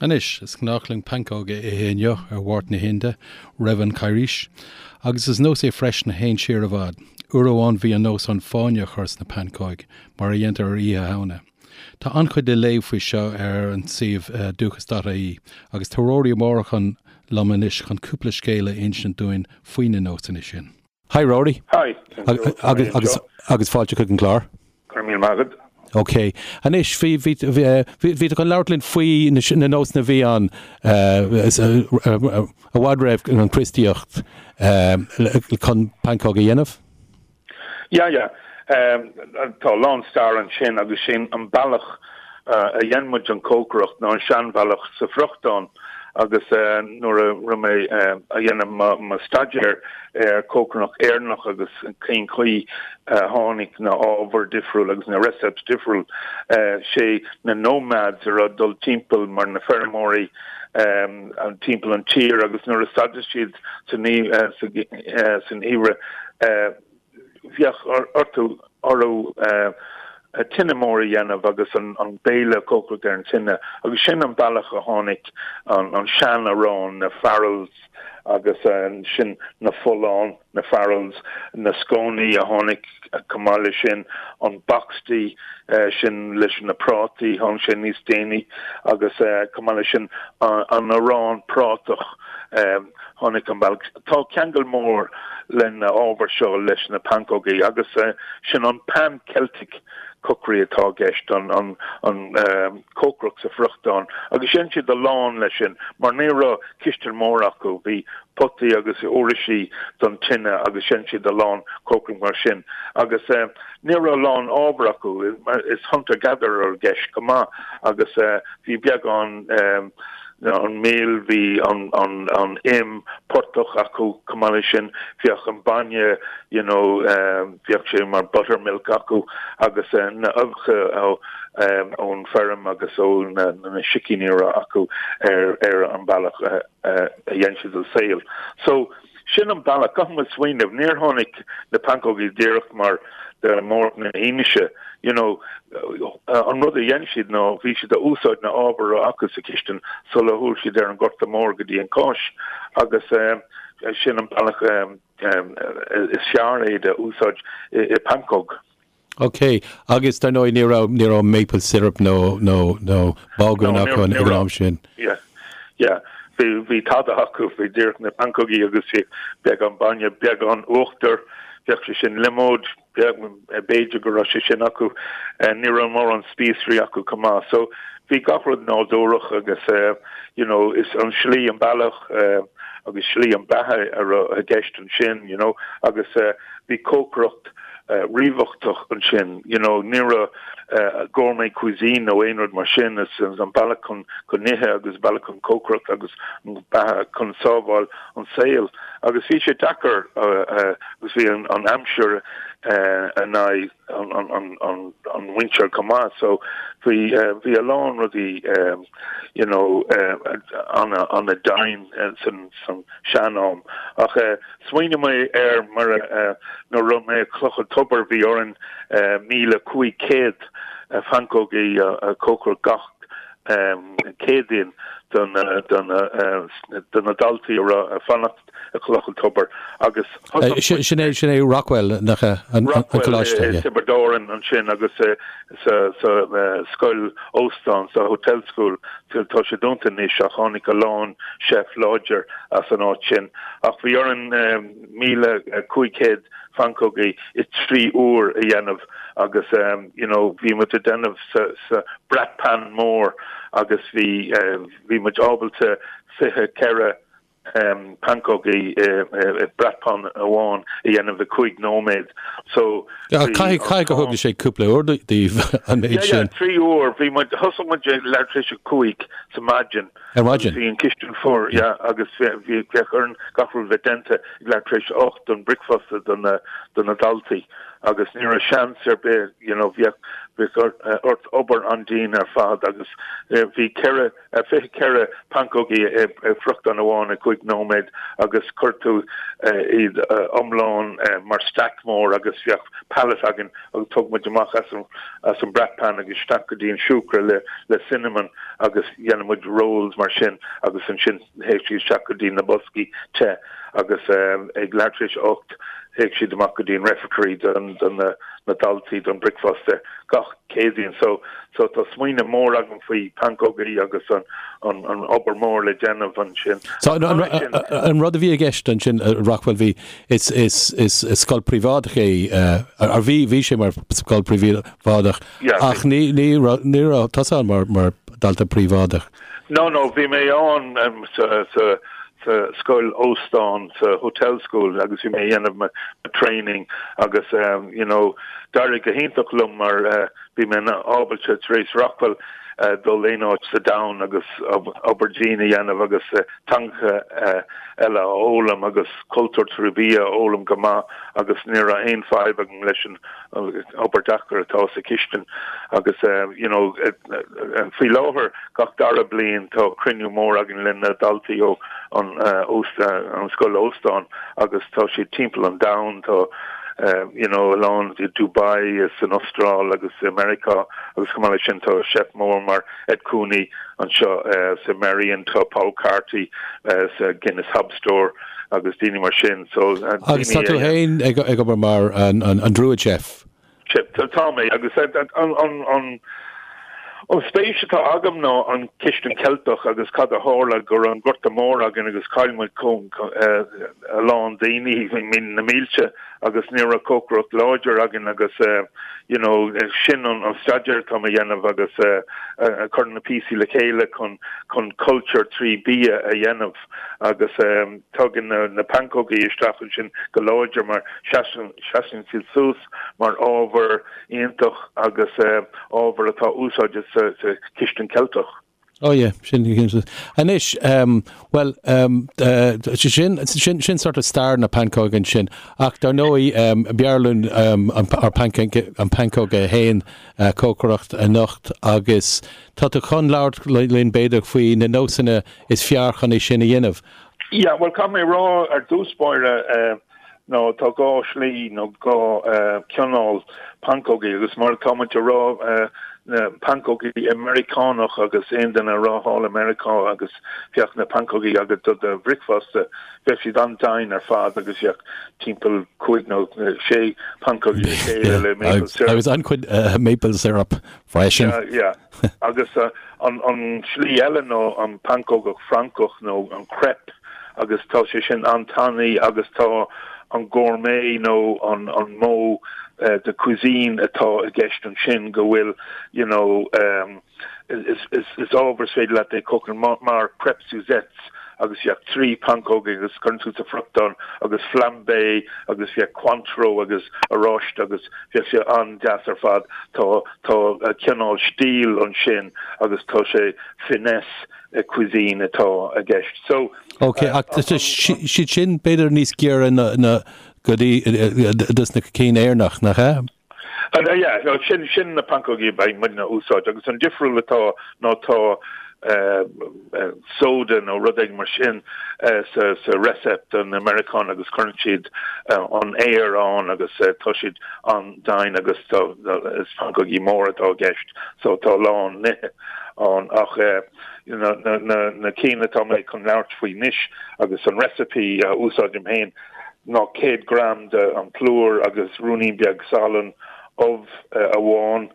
Anois, is gnách linn pancóg a ithe inniu ar Mháirt na hInde, roimh an Charghais, agus is nós é freisin a théann siar i bhfad. Uair amháin bhí an nós ann fáinne a chur sna pancóig, mar a dhéantar ar Oíche Shamhna. Tá an-chuid le léamh faoi seo ar an suíomh dúchas.ie, agus tá Rory Ó Mórdha liom anois chun cúpla scéal a insint dúinn faoi na nósanna sin. Hi Rory. Hi. Agus agus fáilte chuig an gclár. Go raibh míle maith agat. Ok. Anois, bhí bhí bhí tú chun labhairt linn faoi na nósanna a bhí ann i bhfad roimh an Chríostaíocht chun pancóg a dhéanamh? Yeah, yeah. Tá a lán stair ansin agus sin an bealach a dhein muid an cócaireacht ná an seanbhealach sa friochtán agus nuair a raibh mé a dhéanamh mo staidéar ar cócaireacht Éireannach agus cén chaoi a tháinig na ábhair difriúil agus na recipes difriúil, sé na nomads a raibh ag dul timpeall mar na feirmeoirí timpeall an tír agus nuair a stadadh siad san gheimhreadh bheadh orthu orthu tine mór a dhéanamh agus an béile a chócaireacht ar an tine agus sin an bealach a tháinig an sean-arán, na farls agus sin na folláin, na farls, na scónaí a tháinig chomh maith leis sin, an boxty sin leis na prátaí, tháinig sé níos déanaí agus chomh maith leis sin an arán prátach. Tháinig an bealach. Tá ceangal mór le na ábhair seo leis na pancógaí agus sin an pan Celtic cookery atá i gceist, an cócaireacht sa friochtán agus dhein siad a lán leis sin mar ní raibh cistin mór acu, bhí potaí agus uirlisí don tine agus dhein siad a lán cócaireacht mar sin agus ní raibh a lán ábhar acu, is hunter gatherer i gceist go maith agus bhí beagán an mil, bhí an im portach acu chomh maith leis sin, bheadh an bainne you know bheadh sé mar buttermilk acu agus na uibheacha ón feirm agus ó na sicíní a raibh acu ar an bealach a dhein siad an saol. So Sin an bealach. Caithfidh muid smaoineamh, níor tháinig na pancógaí díreach mar de Mháirt na hInise, you know. An rud a dhein siad ná bhí siad a úsáid na ábhair a raibh acu sa chistin sula shiúil siad ar an Gorta Mór go dtí an Cáis agus sin an bealach is fearr é de úsáid i pancóg. Ok, agus dar ndóigh ní raibh, ní raibh maple syrup nó, nó, nó bágún acu ag an am sin. Yeah, yeah. Bhí, bhí tada acu, bhí díreach na pancógaí agus bhí beagán bainne, beagán uachtar, bheadh sé sin liomóid, b'fhéidir go raibh sé sin acu. Ní raibh mórán spíosraí acu chomh maith. So bhí gach rud nádúrach agus you know, is an slí an bealach agus slí an beatha a raibh i gceist ansin, you know, agus bhí cócaireacht ríthábhachtach ansin, you know, ní raibh gourmet cuisine nó aon rud mar sin, is an bealach chun chun ithe agus bealach chun cócaireacht agus an beatha chun sábháil an saol. Agus bhí sé deacair agus bhí an an aimsir in aghaidh an an an an mhuintir chomh maith, so bhí bhí a lán rudaí you know ana ana dian san san sean-am. Ach Smaoinigh mé air mar nuair a raibh mé i Cloch an Tobair bhí orainn 1,500 phancógaí a chócaireacht gach Céadaoin do na daltaí a raibh ag fanacht i Cloch an Tobair agus Sin é sin é Rockwell nach ea an coláiste. Rockwell i Tiobraid Árann ansin agus sa scoil óstán, sa hotel school, tá sé dúnta anois ach tháinig a lán chef láidir as an áit sin. Ach bhí orainn 1,500 phancógaí i 3 uair a dhéanamh agus you know bhí muid ag déanamh sa bratt pan mór agus bhí bhí muid ábalta 24 pancógaí i bratt pan amháin a dhéanamh i 5 nóiméad. So Caithfidh caithfidh gur thóg sé cúpla uair daoibh an méid sin. Yeah, 3 uair. Bhí muid thosaigh muid ag leathuair tar éis a 5 sa maidin. Ar maidin? Bhí an cistin fuar, yeah, agus bhí bheadh orainn gach rud bheith déanta ag leathuair tar éis a 8 don bricfeasta do na do na daltaí agus ní raibh seans ar bith, you know, bheadh. Bheadh ort obair an-dian ar fad agus bhí 4, 24 pancógaí i bhfriochtán amháin i gcúig nóiméad agus chuir tú iad iomlán mar stack mór agus bheadh pallet againn agus thug muid amach as an as an bratt pan agus isteach go dtí an siúcra le le cinnamon agus dhéanadh muid rolls mar sin agus ansin théadh siad isteach go dtí na boscaí te agus ag leathuair tar éis a 8 théadh siad amach go dtí an refectory don don na na daltaí don bricfeasta gach Céadaoin. So so tá smaoineamh mór agam faoi pancógaí agus an an an obair mór le déanamh ansin. So an an rud a bhí i gceist ansin Rockwell bhí is is is scoil príobháideach é ar bhí bhí sé mar scoil príobháideach ach ní ní raibh ní raibh tusa ann mar mar dalta príobháideach. No no bhí mé ann sa sa sa scoil óstán sa hotel school agus bhí mé ag dhéanamh mo training agus you know d'éirigh go hiontach liom mar bhí mé ábalta tar éis Rockwell dul aon áit sa domhan agus obair dian a dhéanamh agus teangacha eile a fhoghlaim agus cultúr trí bhia a fhoghlaim go maith agus ní raibh aon fadhb agam leis an obair deacair atá sa chistin agus you know faoi láthair gach dara bliain tá cruinniú mór againn le na daltaí ó an an scoil óstán agus tá siad timpeall an domhain tá you know a lán i Dubai is san Astráil agus i Meiriceá agus chomh maith leis sin tá chef mór mar Ed Cooney anseo sa Merrion tá Paul Carty sa Guinness Hob Store agus daoine mar sin. So, Agus tá tú féin ag obair mar an Druid Chef? Tá mé, agus an spéis atá agam ná an chistin Ceilteach agus cad a tharla go raibh an Gorta Mór againn agus chaill muid a lán daoine, na mílte. agus ní raibh cócaireacht láidir againn agus you know sin an staidéar atá mé a dhéanamh agus cur na píosaí le chéile chun chun cultúr trí bia a dhéanamh agus tagann na na pancógaí isteach ansin go láidir mar seasann seasann siad suas mar ábhar iontach agus ábhar atá úsáidte sa sa chistin Ceilteach. Oh yeah, sin anois bhuel sin sin sin sort of stair na pancóg ansin ach dar ndóigh b'fhearr linn an an pancóg é féin a chócaireacht anocht agus tá tú chun labhairt linn b'fhéidir faoi na nósanna is fearr chun é sin a dhéanamh. Yeah, bhuel caithfidh mé a rá ar dtús báire nó tá dhá shlí nó dhá chineál pancógaí agus mar atá muid a rá na pancógaí Meiriceánach agus aon duine a raibh thall i Meiriceá agus bheadh na pancógaí agat do do bhricfeasta bheadh siad an-dian ar fad agus bheadh timpeall cúig nó sé pancógaí le chéile le maple syrup. Agus an-chuid maple syrup freisin. Yeah, yeah. Agus an an slí eile nó an pancógach Francach nó an crepe agus tá sé sin an-tanaí agus tá an gourmet nó an an modh de cuisine atá i gceist ansin go bhfuil you know is is is ábhar is féidir leat é cócaireacht mar mar crepe Suzettes agus bheadh trí pancóg agus cuireann tú sa friochtán agus flambé agus bheadh Cointreau agus oráiste agus bheadh sé an-deas ar fad tá tá cineál stíl ansin agus tá sé finesse cuisine atá i gceist. So. Ok, ach tá siad sin b'fhéidir níos giorra na go dtí dos na cinn Éireannach, nach ea? Yeah, sin sin na pancógaí a bheidh muidne a úsáid agus an difriúil atá ná tá soda nó rud éigin mar sin sa sa recipe don Meiriceán agus cuireann siad an aer ann agus tá siad an-dian agus tá is pancógaí móra atá i gceist so tá a lán nithe ann ach na cinn atá mé chun labhairt faoi anois agus an recipe a úsáidim féin ná 100 gram de an plúr agus ruainnín beag salann, ubh amháin,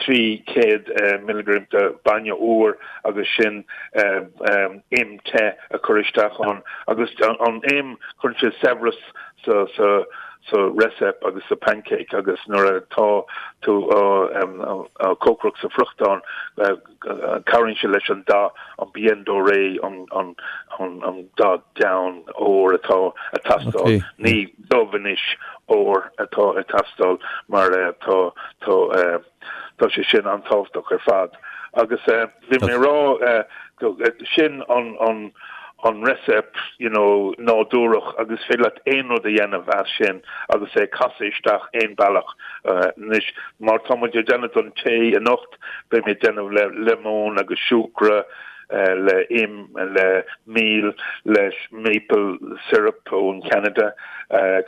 300 milligram de bainne úr agus sin im te a chur isteach ann agus an im cuireann sé saibhreas sa sa sa recipe agus sa pancake agus nuair atá tú á cócaireacht sa friochtán cabhraíonn sé leis an dath an bien doré an an an dath donn ór atá ag teastáil ní dubh anois ór atá ag teastáil mar tá tá tá sé sin an-tábhachtach ar fad agus bhí mé ag rá sin an an. an recipe you know nádúrach agus is féidir leat aon rud a dhéanamh as sin agus é a casadh isteach aon bealach. Anois mar tá muid ag déanamh don tae anocht beidh mé ag déanamh le lemon agus siúcra, le im, le mil, leis maple syrup ón Cheanada,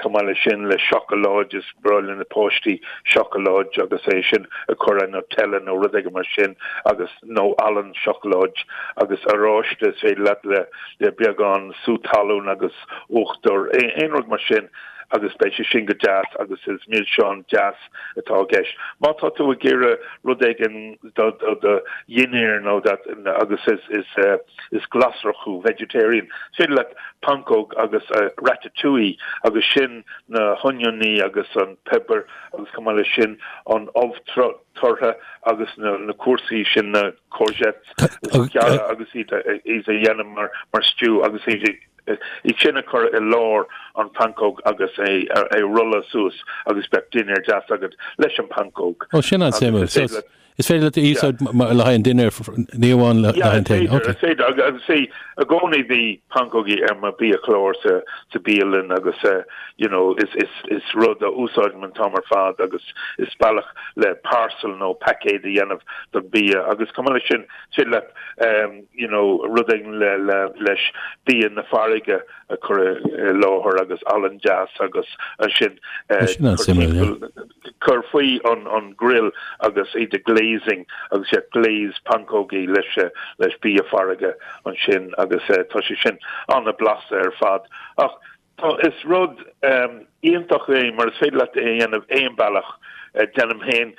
chomh maith leis sin le seacláid, is breá le na páistí seacláid agus é sin a chur ar Nutella nó rud éigin mar sin agus nó olann seacláid agus oráiste is féidir leat le le beagán sú talún agus uachtar, aon rud mar sin agus beidh sé sin go deas agus is milseán deas atá i gceist. Má tá tú ag iarraidh rud éigin do do dhinnéar nó that agus is is is glasrach thú, vegetarian, is féidir leat pancóg agus ratatouille agus sin na honiony agus an pepper agus chomh maith leis sin an ubh tortha agus na na cúrsaí sin na courgettes a ghearradh agus iad a iad a dhéanamh mar mar stew agus iad iad sin a chur i lár an pancóg agus é a rolladh suas agus beadh dinnéar deas agat leis an pancóg. Ó, sin an-suimiúil. So, is féidir leat a úsáid le haghaidh an dinnéar, ní amháin le haghaidh an tae. Yeah, is féidir. Agus see, i gcónaí bhí pancógaí ar mo biachlár sa sa bialann agus you know, is is is rud a úsáidim an t-am ar fad agus is bealach le parcel nó paicéad a dhéanamh don bia agus chomh maith leis sin, is féidir leat you know, rud éigin le, le, leis bia na farraige a chur i láthair agus olann deas agus ansin Sin an-suimiúil, yeah. cur faoi an, an grill agus iad a glazing agus yeah, glaze pancógaí leis, leis bia farraige ansin agus tá sé sin an-blasta ar fad. Ach Tá, is rud iontach é mar is féidir leat é a dhéanamh aon bealach. Déanaim féin,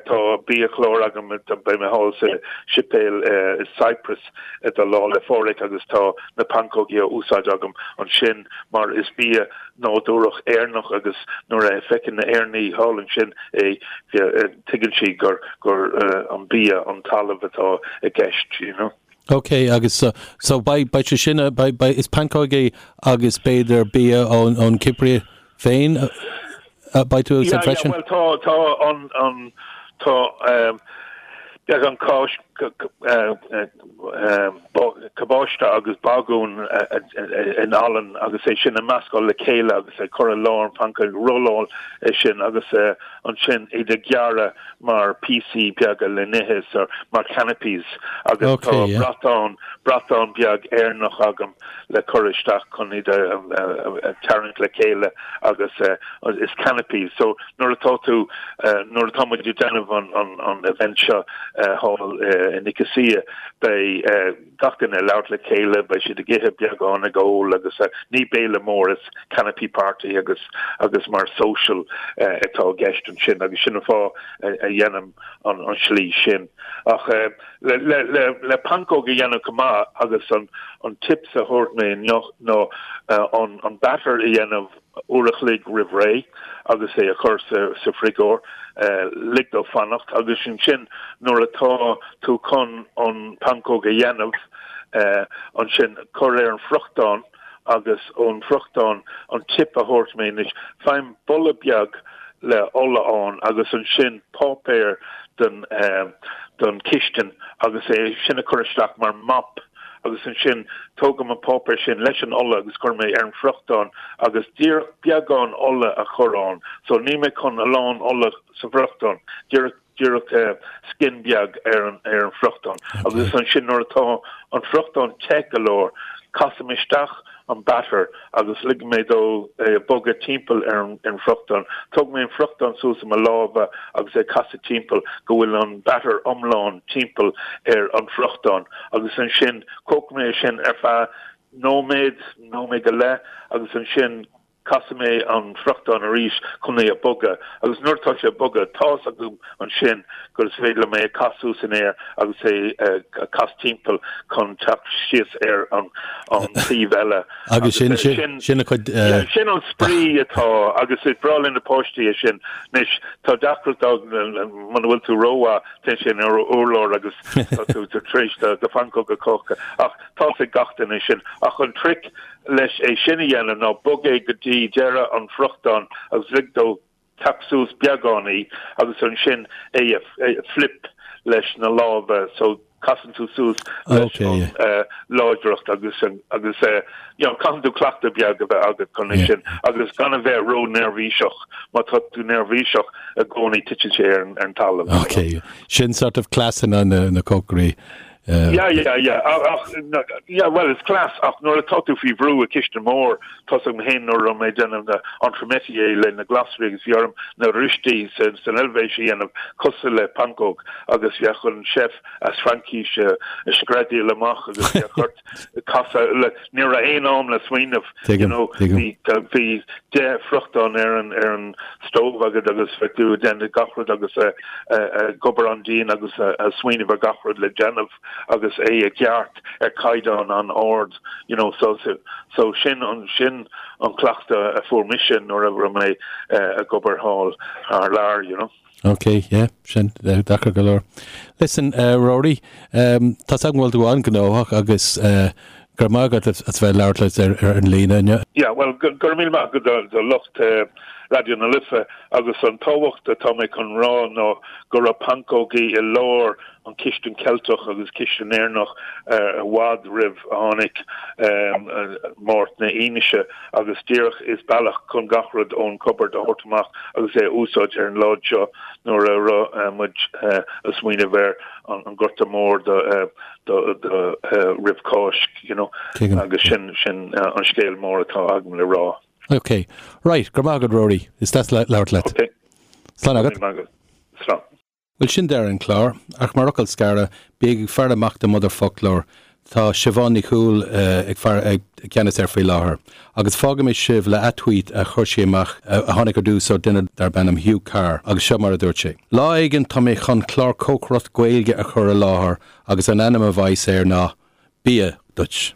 tá biachlár agam, beidh mé thall sa séipéal i Cyprus do Lá 'le Phádraig agus tá na pancógaí á úsáid agam ansin mar is bia nádúrach Éireannach agus nuair a feiceann na Éireannaigh thall ansin é, tuigeann siad gur gur an bia, an talamh atá i gceist, you know. Ok, agus so, so beidh, beidh sé sin, beidh, beidh, is pancógaí agus b'fhéidir bia ón, ón Chipir féin a beidh tú ag úsáid freisin? Yeah, yeah, bhuel tá, tá an, an, tá um, beagán cáis, cabáiste agus bagún in olann agus é sin a meascáil le chéile agus é cur i lár an phancóg, rolláil é sin agus ansin iad a ghearradh mar píosaí beaga le n-ithe so mar canapés agus tá bratán, bratán beag Éireannach agam le cur isteach chun iad a tarraingt le chéile agus is canapés so nuair atá tú, nuair atá muid ag déanamh an an event seo thall i Nicosia beidh gach duine ag labhairt le chéile, beidh siad ag ithe beagán, ag ól agus ní béile mór, is canapé party agus agus mar social atá i gceist ansin agus sin an fáth a dhéanaim an an slí sin. Ach le le le le pancóg a dhéanamh go maith agus an an tips a thabhairt mé inniu ná an an batter a dhéanamh uair a chloig roimh ré agus é a chur sa frigeoir, lig dó fanacht agus ansin nuair atá tú chun an pancóg a dhéanamh, ansin cuir ar an friochtán agus ón friochtán an tip a thabhairt mé anois, faighim bulla beag le ola ann agus ansin páipéar don don chistin agus é sin a chur isteach mar mop. agus ansin tógaim an páipéar sin leis an ola agus cuirim é ar an friochtán agus díreach beagán ola a chur ann so níl mé chun a lán ola sa bhfriochtán, díreach díreach skin beag ar an ar an friochtán agus ansin nuair atá an friochtán te go leor casaim isteach an batter agus ligim mé dó é a bogadh timpeall ar an bhfriochtán. Tóg mé an friochtán suas i mo lámha agus é casadh timpeall go bhfuil an batter iomlán timpeall ar an bhfriochtán agus ansin cócair mé é sin ar feadh nóiméad, nóiméad go leith agus ansin casfaidh mé an friochtán arís chun é a bogadh agus nuair atá sé ag bogadh tá's agam ansin gur is féidir liom é a casadh suas in aer agus é a cas timpeall chun teacht síos ar an taobh eile. Agus sin sin a chuid. Sin an spraoi atá agus is breá le na páistí é sin. Anois tá deacracht muna bhfuil tú rómhaith téann sé ar an urlár agus tá tú tar éis do phancóg a cócadh ach tá's ag gach duine sin. Ach an trick leis é sin a dhéanamh ná bog é go dtí deireadh an friochtáin agus lig dó teacht suas beagáinín agus ansin é a flip leis na lámha so casann tú suas leis an. láidreacht agus agus you know caithfidh tú cleachtadh beag a bheith agat chun é sin agus gan a bheith ró-neirbhíseach. Má tá tú neirbhíseach i gcónaí titeann sé ar an talamh. Ok, sin sort of cleasanna na cócairí. Yeah, yeah, yeah. Ach, yeah, well, is cleas, ach nuair atá tú faoi bhrú i cistin mór, tá 's agam féin nuair a raibh mé ag déanamh na entremetier le na glasraí agus bhí orm na rösti san Eilvéis a dhéanamh cosúil le pancóg agus bheadh an chef as Fraincis ag screadaíl amach agus bheadh ort casadh le, ní raibh aon am le smaoineamh, you know, bhí bhí 10 friochtán ar an ar an stove agat agus bheadh tú ag déanamh gach rud agus ag obair an-dian agus ag smaoineamh ar gach rud le déanamh agus é i gceart ar caighdeán an-ard, you know, so so sin an sin an cleachtadh a fuair mise nuair a raibh mé ag obair thall thar lear, you know. Ok, yeah, sin deacair go leor. Listen, Rory, tá 's agam go bhfuil tú an-ghnóthach agus go raibh maith agat as bheith ag labhairt linn ar an líne inniu. Yeah, bhuel, go raibh míle maith agat do lucht Raidió na Life agus an tábhacht atá mé chun rá ná go raibh pancógaí i lár an chistin Ceilteach agus cistin Éireannach i bhfad roimh a tháinig Máirt na hInise agus díreach is bealach chun gach rud ón cupboard a thabhairt amach agus é a úsáid ar an lá seo nuair a raibh muid ag smaoineamh ar an Gorta Mór do roimh Cáisc you know agus sin sin an scéal mór atá agam le rá. Ok. Right, go raibh maith agat Rory. Is deas labhairt leat. Ok. Slán agat. Slán. Bhuel, sin deireadh an chláir, ach mar fhocal scaire, bígí ag faire amach do Motherfoclóir. Tá Siobhán Ní Chúil ag faire ag ceannas air faoi láthair. Agus fágfaidh mé sibh le tweet a chuir sí amach, a tháinig ar dtús ó duine darb ainm Hugh Carr, agus seo mar a dúirt sé. Lá éigin tá mé chun clár cócaireacht Gaeilge a chur i láthair agus an ainm a bheas air ná Bia Duit.